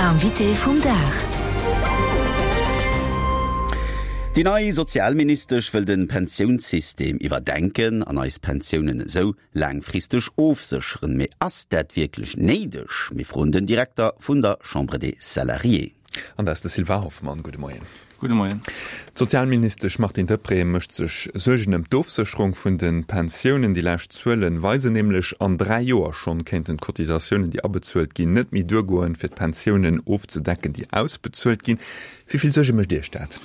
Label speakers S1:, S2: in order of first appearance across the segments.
S1: L'invité vum Dag.
S2: Déi nei Sozialministesch wëll de Pensiounssystem iwwerdenken an eis Pensiounen esou laangfristeg ofsécheren. Mee ass dat wierklech néideg? Mir froen den Direkter vun der Chambre des Salariés.
S3: An dat ass de Sylvain Hoffmann. Gudde Moien.
S4: Gudde Moien.
S3: D'Sozialministesch Martine Deprez mécht sech Suergen ëm d'Ofsécherung vun de Pensiounen. Déi lescht Zuele weisen nämlech, an 3 Joer schonn kéinten d'Cotisatiounen, déi abezuelt ginn, net méi duergoen, fir d'Pensiounen ofzedecken, déi ausbezuelt ginn. Wéi vill Suerge mécht Iech dat?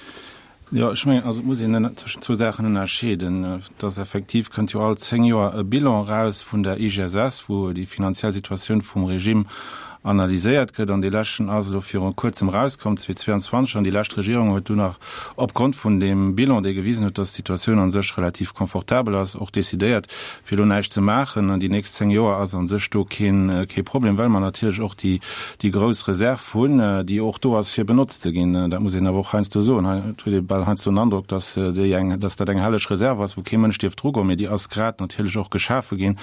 S4: Jo, ech mengen, also et muss een tëschent zwou Saachen ënnerscheeden. Et ass effektiv, kënnt jo all 10 Joer e Bilan eraus vun der IGSS, wou déi finanziell Situatioun vum Regime analyséiert gëtt. An dee leschten ass elo viru Kuerzem erauskomm, 2022, an déi lescht Regierung huet dunn nach opgrond vun deem Bilan, dee gewisen huet, dass d'Situatioun a sech relativ confortabel ass, och decidéiert, fir elo näischt ze maachen. An déi nächst 10 Joer ass a sech do keen, kee Problem, well mer natierlech och déi, déi grouss Reserv hunn, déi och do ass, fir benotzt ze ginn. Dat muss een awer och heiansdo soen. Hei huet ee bal heiansdo den Androck, dass déi eng, dass dat eng helleg Reserv ass, wou kee Mënsch dierf drugoen, mee déi ass grad natierlech och geschafe ginn,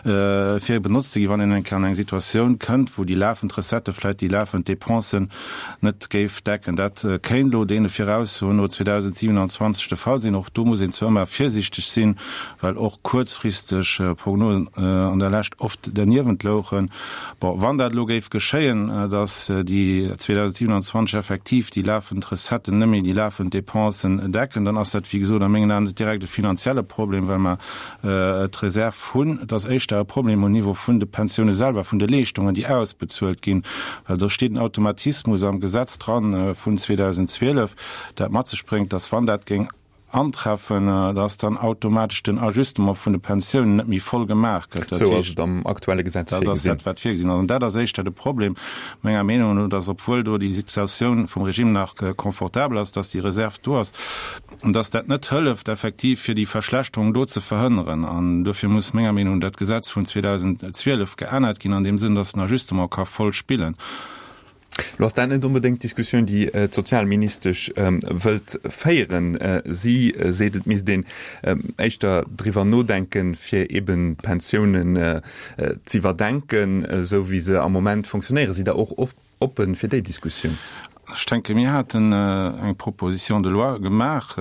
S4: fir benotzt ze ginn, wann een eng Kéier an eng Situatioun kënnt, wou déi lafend Recettë vläicht déi lafend Dépensen net géif decken. Dat kéint elo deene Viraussoen no 2027 de Fall sinn. Och do muss een zwar ëmmer virsiichteg sinn, well och kuerzfristeg Prognosen an der Lescht oft derniewent louchen. Bon, wann dat elo géif geschéien, datt déi 2027 effektiv déi lafend Recetten net méi déi lafend Dépensen decken, dann ass dat, wéi gesot, a mengen Aen net direkt e finanzielle Problem, well mer d'Reserv hunn. Et ass éischter e Problem um Niveau vun de Pensioune selwer, vun de Leeschtungen, déi ausbezuelt ginn, well do steet en Automatismus am Gesetz dran vun 2012, dat mat sech bréngt, dass, wann dat géing antreffen, dass dann automatesch den Ajustement vun de Pensiounen net méi voll gemaach gëtt.
S3: Dat Esou ass et am aktuelle Gesetz
S4: virgesinn. Dat ass dat, wat virgesinn ass. An dat ass éischter de Problem, menger Meenung no, dass, obwuel do déi Situatioun vum Regime nach confortabel ass, dass déi Reserv do ass, An dass dat net hëlleft effektiv, fir déi Verschlechterung do ze verhënneren. An dofir muss menger Meenung no dat Gesetz vun 2012 geännert ginn an deem Sënn, dass den Ajustement ka voll spillen.
S3: Lo ass dat net onbedéngt d'Diskussioun, déi d'Sozialministesch wëllt féieren. Si seet, et misst een éischter driwwer nodenken, fir eben d'Pensiounen z'iwwerdenken, esou wéi se am Moment fonctionnéieren. Sidd Der och Oppen fir déi Diskussioun.
S4: Ech denken, mir haten eng Proposition de loi gemaach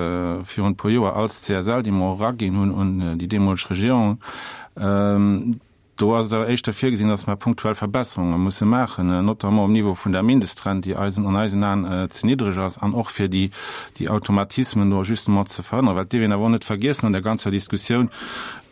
S4: virun e puer Joer als CSL, déi mer och eraginn hunn un déi deemoleg Regierung. Do ass et awer éischter virgesinn, dass mer punktuell Verbesserunge musse maachen, notamment um Niveau vun der Mindestrent, déi eisen, an eisen Aen ze niddreg ass, an och fir déi, déi Automatismen do justement ze verhënneren. Well et dierf een awer och net vergiessen an der ganzer Diskussioun,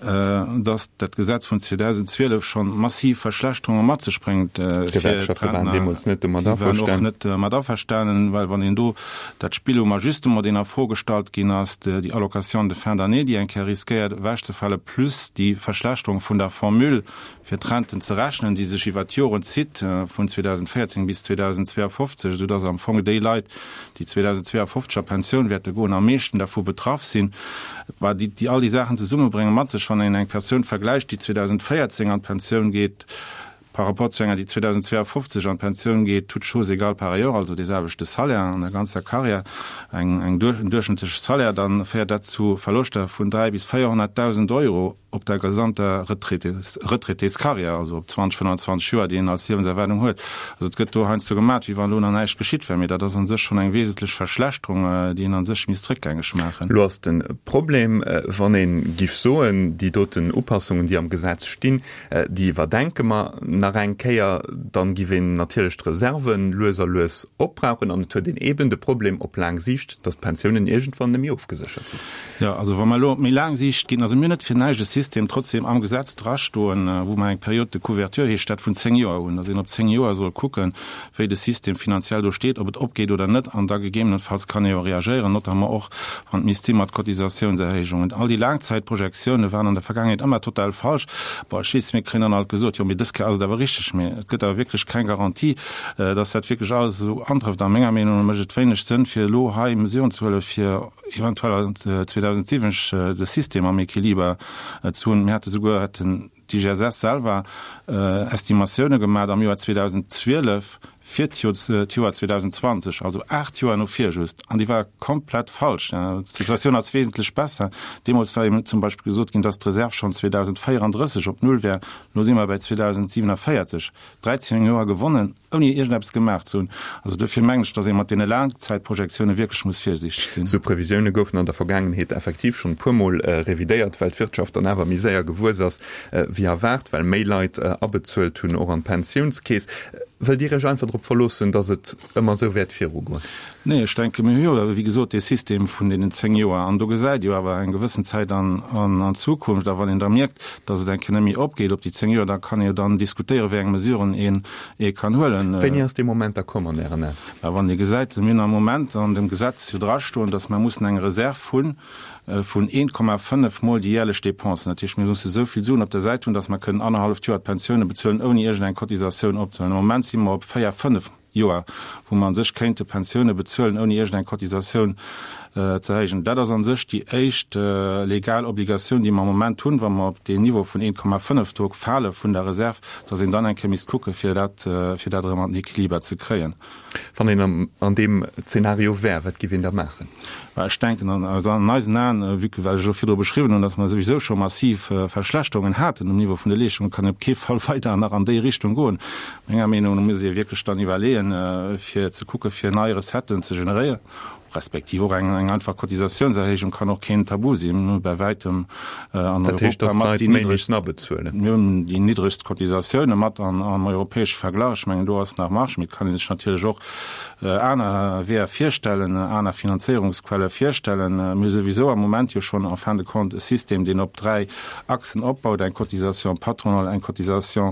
S4: dass dat Gesetz vun 2012 schonn massiv Verschlechterunge mat sech bréngt fir
S3: D'Gewerkschafte waren
S4: d'Rentner.
S3: deemools net domat
S4: Déi waren och
S3: averstanen.
S4: net mat averstanen, well wann een do dat Spill um Ajustement, deen a Fro gestallt ginn ass, déi Allocation de fin d'année, déi eng Kéier riskéiert ewechzefalen, plus déi Verschlechterung vun der Formule fir d'Renten ze rechnen, déi sech iwwert d'Joren zitt, vun 2014 bis 2052, esou dass am Fong déi Leit, déi 2052 a Pensioun wäerte goen, am meeschten dervu betraff sinn. Bah, déi, déi all déi Saachen zesummebrénge mat sech, wann een eng Persoun vergläicht, déi 2014 an d'Pensioun geet, par rapport zu enger, déi 2052 an d'Pensioun geet, toutes choses égales par ailleurs, also dee selwechte Salaire an der ganzer Carrière, eng, eng, en duerchschnëttleche Salaire, da féiert dat zu Verloschter vun 3 bis 400.000 Euro. op der gesamter Retraitéscarrière, also op 20, 25 Joer, déi een als Liewenserwaardung huet. Also et gëtt do heiansdo gemat, wéi wann elo nach näischt geschitt wär, mee dat ass a sech schonn eng wesentlech Verschlechterung, déi een a sech misst réckgängeg maachen.
S3: Elo ass de Problem, wann ee giff soen, déi doten Upassungen, déi am Gesetz stinn, déi iwwerdenke mer nach eng Kéier, dann giff een natierlech d'Reserven lues a lues opbrauchen an et huet een eeben de Problem op laang Siicht, datt d'Pensiounen iergendwann net méi ofgeséchert sinn.
S4: Jo, also wa mer elo op méi laang Siicht ginn, also mir hunn net fir näischt e System trotzdem am Gesetz drastoen, wou mer eng Période de couverture, heescht dat, vun 10 Joer hunn, dass een op 10 Joer soll kucken, wéi de System finanziell do steet, ob et opgeet oder net, an da gegebenenfalls kann ee jo reagéieren, notamment och wann et misst si mat Cotisatiounserhéijungen. All déi Laangzäitprojektioune waren an der Vergaangenheet ëmmer total falsch. Bon, ech weess, mir kréien dann alt gesot, jo, mee dës Kéier ass et awer richteg, mee et gëtt awer wierklech keng Garantie, dass dat wierklech alles esou antrëfft. A menger Meenung no mécht et wéineg Sënn, fir elo hei Mesuren ze huelen, fir eventuell 2007 de System am Equiliber ze hunn. Mir hate souguer, hätten d'IGSS selwer Estimatioune gemat am Joer 2012, fir d'Joer 2020, also 8 Joer no vir just, an déi war komplett falsch. D'Situatioun ass wesentlech besser. Deemools war eben zum Beispill gesot ginn, dass d'Reserv schonn 2034 op Null wär. Elo si mer bäi 2047. 13 Joer gewonnen, ouni iergendeppes gemaach ze hunn. Also duerfir mengen ech, dass ee mat deene Laangzäitprojektioune wierklech muss virsiichteg sinn.
S3: Esou Previsioune goufen an der Vergaangenheet effektiv schonn e puermol revidéiert, well d'Wirtschaft dann awer méi séier gewuess ass wéi erwaart, well méi Leit abezuelt hunn, och an d'Pensiounskeess. Wëllt Dir Iech einfach drop verloossen, datt et ëmmer esou wäert virugoen?
S4: Nee, ech denke mir hu jo, wéi gesot, dee System vun deenen 10 Joer an do gesäit jo awer eng gewëssen Zäit an an d'Zukunft. A wann een da mierkt, datt et eng Kéier net méi opgeet op déi 10 Joer, da kann ee jo dann diskutéieren, wéi eng Mesuren een ee kann huelen.
S3: Wéini ass dee Moment da komm an Ären Aen?
S4: Mä wann ee gesäit, mir hunn am Moment an dem Gesetz jo drastoen, datt mer mussen eng Reserv hunn, vun 1,5 mol déi jährlech Dépensen. Dat heescht, mir musse esou vill Suen op der Säit hunn, datt mer kënnen annerhalleft Joer d'Pensioune bezuelen, ouni iergendeng Cotisatioun opzehuelen. Am Moment si mer op véier, fënnef Joer, wou mer a sech kéinte Pensioune bezuelen, ouni iergendeng Cotisatioun ze erhéijen. Dat ass a sech déi éischt legal Obligatioun, déi mer am Moment hunn, wa mer op deen Niveau vun 1,5 do fale vun der Reserv, datt een dann eng Kéier misst kucke fir dat, fir dat erëm an den Equiliber ze kréien.
S3: Wann een an deem Zeenario wär, wat giff een da maachen?
S4: Bah, ech denken, an eisen Aen, vue que wat ech elo virdru beschriwwen hunn, datt mer souwisou scho massiv Verschlechterungen haten um Niveau vun de Leeschtungen, kann een op kee Fall weider nach an déi Richtung goen. Menger Meenung no muss ee wierklech dann iwwerleeën, fir ze kucke fir nei Recetten ze generéieren, respektiv och eng einfach Cotisatiounserhéijung kann och keen Tabu sinn. Mir hu bäi wäitem an
S3: Europa mat déi niddregst,
S4: mir hunn déi niddregst Cotisatioune mat am europäesche Verglach. Ech mengen, do ass nach Marge, mee et kann ee sech natierlech och aner Weeër virstellen, aner Finanzéierungsquelle virstellen. Mir hu souwisou am Moment jo schonn en fin de compte e System, deen op dräi Achsen opbaut, eng Cotisation patronale, eng Cotisation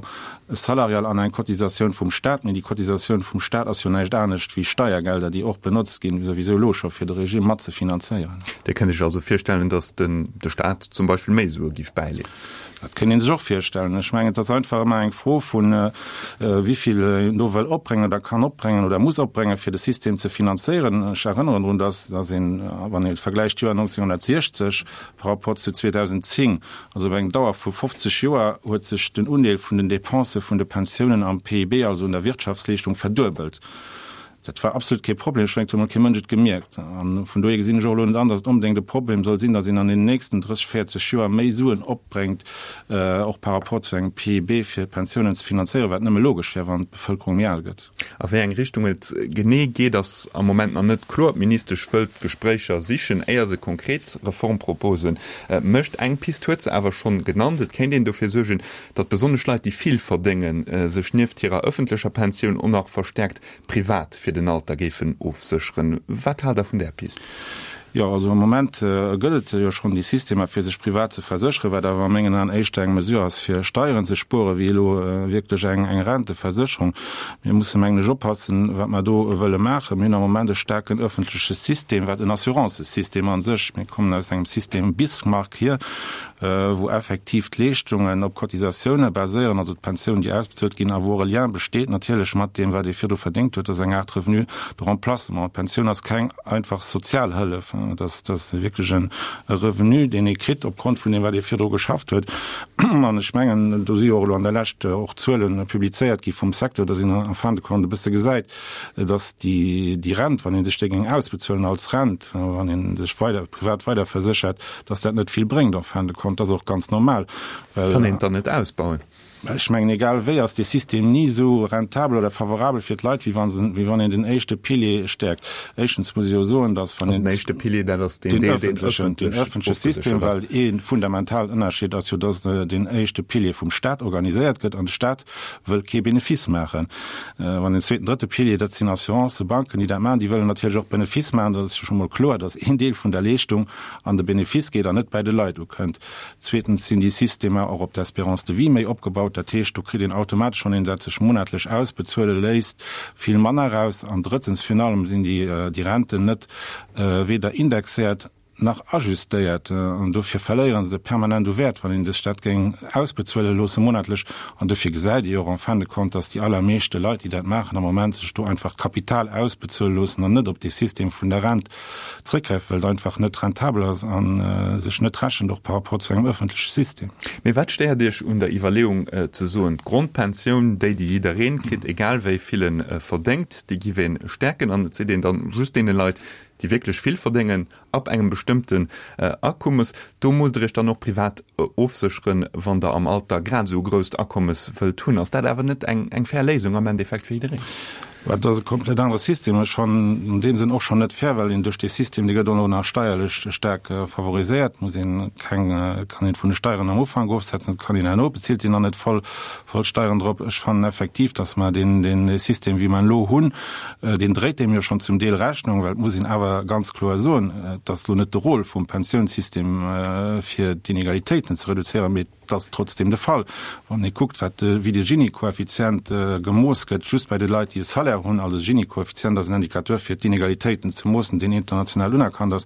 S4: salariale an eng Cotisatioun vum Stat, mee déi Cotisatioun vum Stat ass jo näischt anescht wéi Steiergelder, déi och benotzt ginn, souwisou elo scho fir de Regime mat ze finanzéieren.
S3: Dir kënnt Iech also virstellen, datt den de Stat zum Beispill méi Sue giff bäileeën?
S4: Dat kënnt ee sech och virstellen. Ech mengen, et ass einfach ëmmer eng Fro vun, wéi vill een do wëll opbréngen oder kann opbréngen oder muss opbréngen, fir de System ze finanzéieren. Ech erënneren drun, datt datt een, wann ee vergläicht d'Joer 1960 par rapport zu 2010, Also iwwer eng Dauer vu 50 Joer huet sech den Undeel vun den Depensë vun de Pensiounen am PIB, also un der Wirtschaftsleeschtung, verduebelt. Dat war absolut kee Problem. Ech mengen, et huet emol kee Mënsch et gemierkt. A vun dohier gesinn ech och elo net an, datt et onbedéngt e Problem soll sinn, datt een an den nächsten 30, 40 Joer méi Suen opbréngt, och par rapport zu engem PIB, fir d'Pensiounen ze finanzéieren, wat nëmme logesch wär, wann d'Bevëlkerung méi al gëtt.
S3: A wéi eng Richtung et genee geet, ass am Moment nach net kloer. D'Ministesch wëllt d'Gespréicher sichen, éier se konkret Reformproposen mécht. Eng Pist huet se awer schonn genannt, Et kéint een dofir suergen, datt besonnesch Leit, déi vill verdéngen, sech nieft hirer ëffentlecher Pensioun och nach verstäerkt privat fir den Alter géifen ofsécheren. Wat haalt Der vun där Pist?
S4: Jo, also am Moment gëtt et jo schonn déi Systemer, fir sech privat ze versécheren, wat awer a mengen Aen éischter eng Mesure ass, fir Steieren ze spueren, wéi elo wierklech eng Renteversécherung. Mir musse mengen ech oppassen, wat mer do wëlle maachen. Mir hunn am Moment e staarken öffentleche System, wat en Assurancesystem a sech, mir kommen aus engem System Bismarck hier, wou effektiv d'Leeschtungen op Cotisatioune baséieren, also d'Pensiounen, déi ausbezuelt ginn, a wou och e Lien besteet natierlech mat deem, wat ee virdru verdéngt huet. Dat ass eng Aart Revenu de remplacement. D'Pensioun ass keng einfach Sozialhëllef, dat ass wierklech e Revenu, deen ee kritt opgrond vun deem, wat ee virdru geschafft huet. An ech mengen, do si jo och elo an der Lescht och Zuele publizéiert gi vum Secteur, datt een en fin de compte e bësse gesäit, dass déi Rent, wann ee sech déi géing ausbezuelen als Rent, wann ee sech weider privat weiderverséchert, dass dat net vill bréngt en fin de compte. Dat ass och ganz normal,
S3: well. Kann een et dann net ausbauen?
S4: Ech mengen, egal wéi ass dee System ni esou rentabel oder favorabel fir d'Leit, wéi wa se, wéi wann een den éischte Pilier stäerkt. Éischtens muss ech jo soen, dass wann
S3: een. Also den éischte Pilier, dat ass deen Deel, deen
S4: ëffentlech. Den ëffentleche System, well ee fundamentalen Ënnerscheed ass jo, dass den éischte Pilier vum Stat organiséiert gëtt an de Stat wëll kee Benefice maachen. Wann den zweeten, drëtte Pilier, dat sinn Assurancen, Banken, déi dat maachen, déi wëllen natierlech och Benefice maachen. Dat ass jo scho mol kloer, datt een Deel vun der Leeschtung an de Benefice geet an net bäi de Leit ukënnt. Zweetens sinn déi Systemer och op d'Espérance de vie méi opgebaut. Dat heescht, do kritt een automatesch, wann een dat sech monatlech ausbezuele léisst, vill manner eraus. An drëttens virun allem sinn déi Renten net weder indexéiert. nach ajustéiert an dofir verléiere se permanent u Wäert, wann een sech dat géing ausbezuele loosse monatlech. An dofir gesäit ee jo och en fin de compte, dass déi allermeeschte Leit, déi dat maachen am Moment, sech do einfach d'Kapital ausbezuele loossen an net op dee System vun der Rent zréckgräifen, well et einfach net rentabel ass a sech net rechent, och par rapport zu engem öffentleche System.
S3: Mee wat stéiert Iech un der Iwwerleeung ze soen, d'Grondpensioun, déi déi jiddereen kritt, egal wéi vill e verdéngt, déi giff ee stäerken an et seet een dann just deene Leit, déi wierklech vill verdéngen, ab engem bestëmmten Akommes, do musst Der Iech dann och privat ofsécheren, wann Der am Alter grad esou e grousst Akommes wëllt hunn. Ass dat awer net eng fair Léisung am Endeffekt fir jiddereen?
S4: Dat ass e komplett anere System. Ech fannen an deem Sënn och schonn net fair, well een duerch dee System, dee gëtt och nach steierlech staark favoriséiert, muss een keng, kann een vun de Steieren am Ufank ofsetzen, dat kann een herno, bezilt een dann net voll, voll Steieren drop. Ech fannen effektiv, datt mer deen, deen System, wéi mer en elo hunn, deen dréit deem jo schonn zum Deel Rechnung, well et muss een awer ganz kloer soen, et ass elo net de Rôle vum Pensiounssystem, fir d'Inegalitéiten ze reduzéieren, mee et ass trotzdem de Fall, wann ee kuckt, wat de, wéi de Gini-Koeffizient gemooss gëtt, just bei de Leit, déi e Salaire hunn. Also de Gini-Koeffizient ass en Indicateur, fir d'Inegalitéiten ze moossen, deen international unerkannt ass.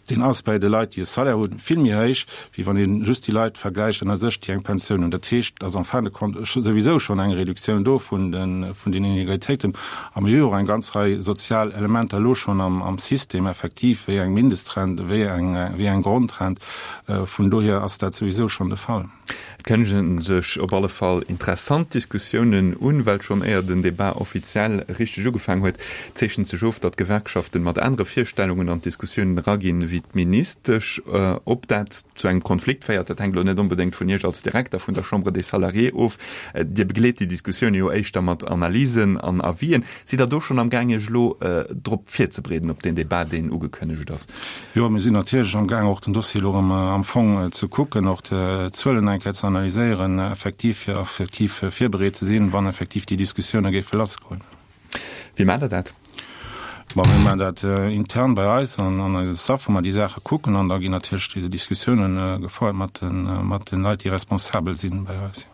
S4: Deen ass bei de Leit, déi e Salaire hunn, vill méi héich, wéi wann ee just déi Leit vergläicht ënner sech, déi eng Pensioun hunn. Dat heescht, et ass en fin de compte souwisou schonn eng Reduktioun do vun den Inegalitéiten. A mir hu jo och eng ganz Rei sozial Elementer elo schonn am System effektiv, wéi eng Mindestrent, wéi eng Grondrent. Vun dohier ass dat souwisou schonn de Fall.
S3: Et kënnegen sech op alle Fall interessant Diskussiounen un, well schonn éier den Debat offiziell richteg ugefaang huet, zeechent sech of, datt d'Gewerkschaften mat anere Virstellungen an d'Diskussiounen eraginn ewéi d'Ministesch. Ob dat zu engem Konflikt féiert, dat hänkt elo net onbedéngt vun Iech als Direkter vun der Chambre des Salariés of. Dir begleet déi Diskussioune jo éischter mat Analysen an Avisen. Sidd Der do schonn am Gaang Iech elo drop virzebereeden, op deen Debat, deen ugekënnegt ass?
S4: Jo, mir sinn natierlech am Gaang och den Dossier elo erëm am Fong ze kucken, och d'Zuelen eng Kéier ze analyséieren, effektiv, fir effektiv virbereet ze sinn, wann effektiv déi Diskussioune géife lassgoen.
S3: Wéi maacht Der dat?
S4: Bon, mir maachen dat intern bei eis an an eisem Staff, wou mer déi Saache kucken an da ginn natierlech déi Diskussiounen gefouert mat de mat den Leit, déi responsabel sinn bei eis.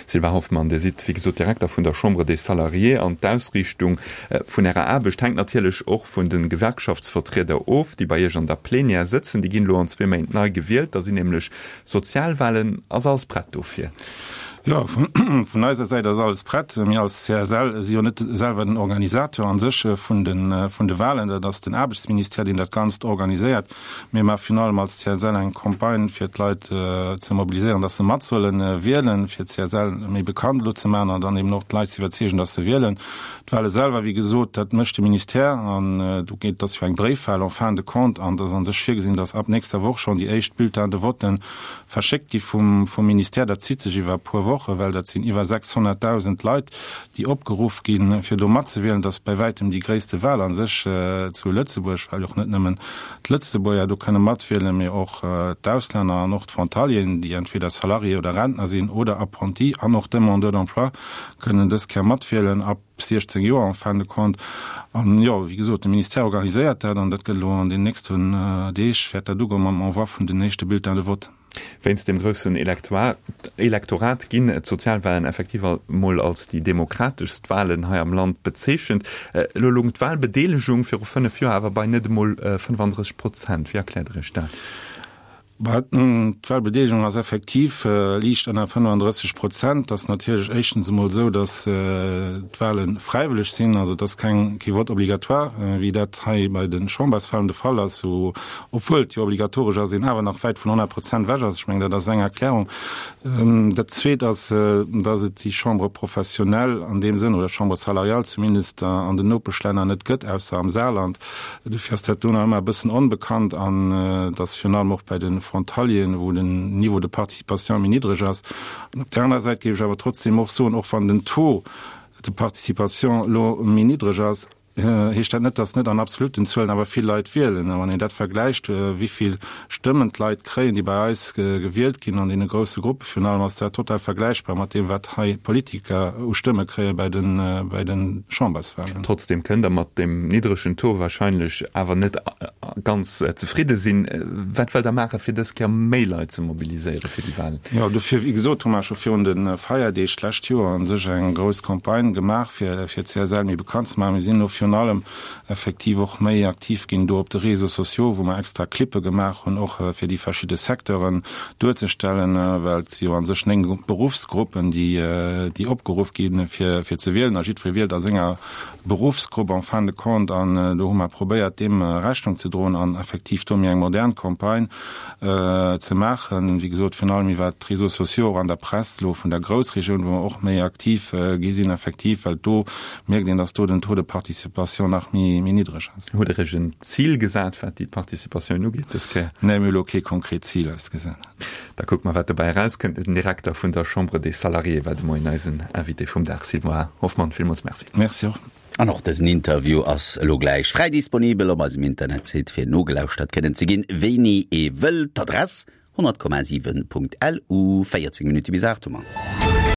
S3: Sylvain Hoffmann, Dir sidd wéi gesot Direkter vun der Chambre des Salariés an d'Ausriichtung vun Ärer Aarbecht hänkt natierlech och vun de Gewerkschaftsvertrieder of, déi bei Iech an der Plenière sëtzen. Déi ginn elo an zwee Méint nei gewielt, da sinn nämlech Sozialwahlen. Ass alles prett dofir?
S4: Jo, vun eiser Säit ass alles prett. Mir als CSL si jo net selwer den Organisateur an sech vun de Wahlen. Dat ass den Aarbechtsministère, deen dat Ganzt organiséiert. Mir maache virun allem als CSL eng Campagne, fir d'Leit ze mobiliséieren, dass se mat solle wielen, fir d'CSL méi bekannt elo ze maachen an dann eben och d'Leit ze iwwerzeegen, dass se wielen. D'Wahle selwer, wéi gesot, dat mécht de Ministère an do geet, dat ass jo eng Bréifwahl en fin de compte an et ass a sech virgesinn, dass ab nächster Woch schonn déi éischt Bulletins de voten verschéckt gi vum Ministère. Dat zitt sech iwwer e puer Wochen, well dat sinn iwwer 600.000 Leit, déi opgeruff ginn, fir do matzewielen. Dat ass bäi wäitem déi gréisste Wahl a sech zu Lëtzebuerg, well och net nëmmen d'Lëtzebuerger do kënne matwielen, mee och d'Auslänner an och d'Frontalieren, déi entweder Salarié oder Rentner sinn oder Apprenti an och Demandeurs d'emploi kënnen dës Kéier matwielen, ab 16 Joer en fin de compte. An jo, wéi gesot, de Ministère organiséiert dat an dat gëtt elo an den nächsten Deeg wäert dat ugoen mam Envoi vun den éischte Bulletins de vote.
S3: Wéinst dem groussen Elektorat ginn d'Sozialwahlen effektiv emol als déi demokrateschst Wahlen hei am Land bezeechent. Elo loung d'Wahlbedeelegung viru 5 Joer awer bei net emol 35 Prozent. Wéi erkläert Der Iech dat?
S4: D'Wahlbedeelegung ass effektiv liicht ënner 35 Prozent. Et ass natierlech éischtens emol esou, datt d'Wahle fräiwëlleg sinn, also et ass keng, kee Vote obligatoire, wéi dat hei bei de Chamberswahlen de Fall ass, wou obwuel et jo obligatoresch ass, een awer nach wäit vun 100 Prozent ewech ass. Ech mengen, dat ass eng Erklärung. Dat Zweet ass, dass et déi Chambre professionnelle an deem Sënn, oder Chambre salariale zumindest, an den Nopeschlänner net gëtt, ausser am Saarland. Dofir ass dat do nach ëmmer e bëssen onbekannt an et ass virun allem och bei de Frontalieren, wou den Niveau de participation méi niddreg ass. An op där anerer Säit géif ech awer trotzdem och soen, och wann den Taux de participation elo méi niddreg ass, heescht dat net, datt net an absoluten Zuelen awer vill Leit wielen. A wann een dat vergläicht, wéi vill Stëmmen d'Leit kréien, déi bei eis gewielt ginn an deene grousse Gruppe virun allem, ass dat total vergläichbar mat deem, wat hei Politiker u Stëmme kréie bei de, bei de Chamberswahlen.
S3: Trotzdem kënnt Der mat deem niddregen Taux wahrscheinlech awer net. ganz zefridde sinn. Wat wëllt Der maachen, fir dës Kéier méi Leit ze mobiliséiere fir déi Wahlen?
S4: Jo, dofir, wéi gesot, hu mer scho virun de Feierdeeg d'lescht Joer u sech eng grouss Campagne gemaach, fir fir d'CSL méi bekannt ze maachen. Mir sinn elo virun allem effektiv och méi aktiv ginn do op de Réseaux sociaux, wou mer extra Clippe gemaach hunn, och fir déi verschidde Secteuren duerzestellen, well et si jo a sech 9 Beruffsgruppen, déi déi opgeruff ginn, fir fir ze wielen a jiddweree wielt a senger Beruffsgrupp en fin de compte an do hu mer probéiert deem Rechnung ze droen an effektiv do méi eng modern Campagne ze maachen. Wéi gesot, virun allem iwwert d'Réseaux sociaux, och an der Press elo vun der Groussregioun, wou mer och méi aktiv gi sinn effektiv, well do mierkt een, dass do den Taux de participation nach méi niddreg ass.
S3: Hutt Der Iech en Zil gesat, wat déi Participatioun ugeet dës Kéier?
S4: Nee, mir hu elo kee konkret Zil eis gesat.
S3: Da kucke mer, wat dobäi erauskënnt. Den Direkter vun der Chambre des Salariés war de Moien eisen Invité vum Dag. Sylvain Hoffmann, villmools Merci.
S4: Merci och.
S2: An och dësen Interview ass elo gläich fräi disponibel op eisem Internetsite fir nogelauschtert kënnen ze ginn, wéini ee wëll. D'Adress, 100,7.lu. 14 Minutte bis 8 hu mer.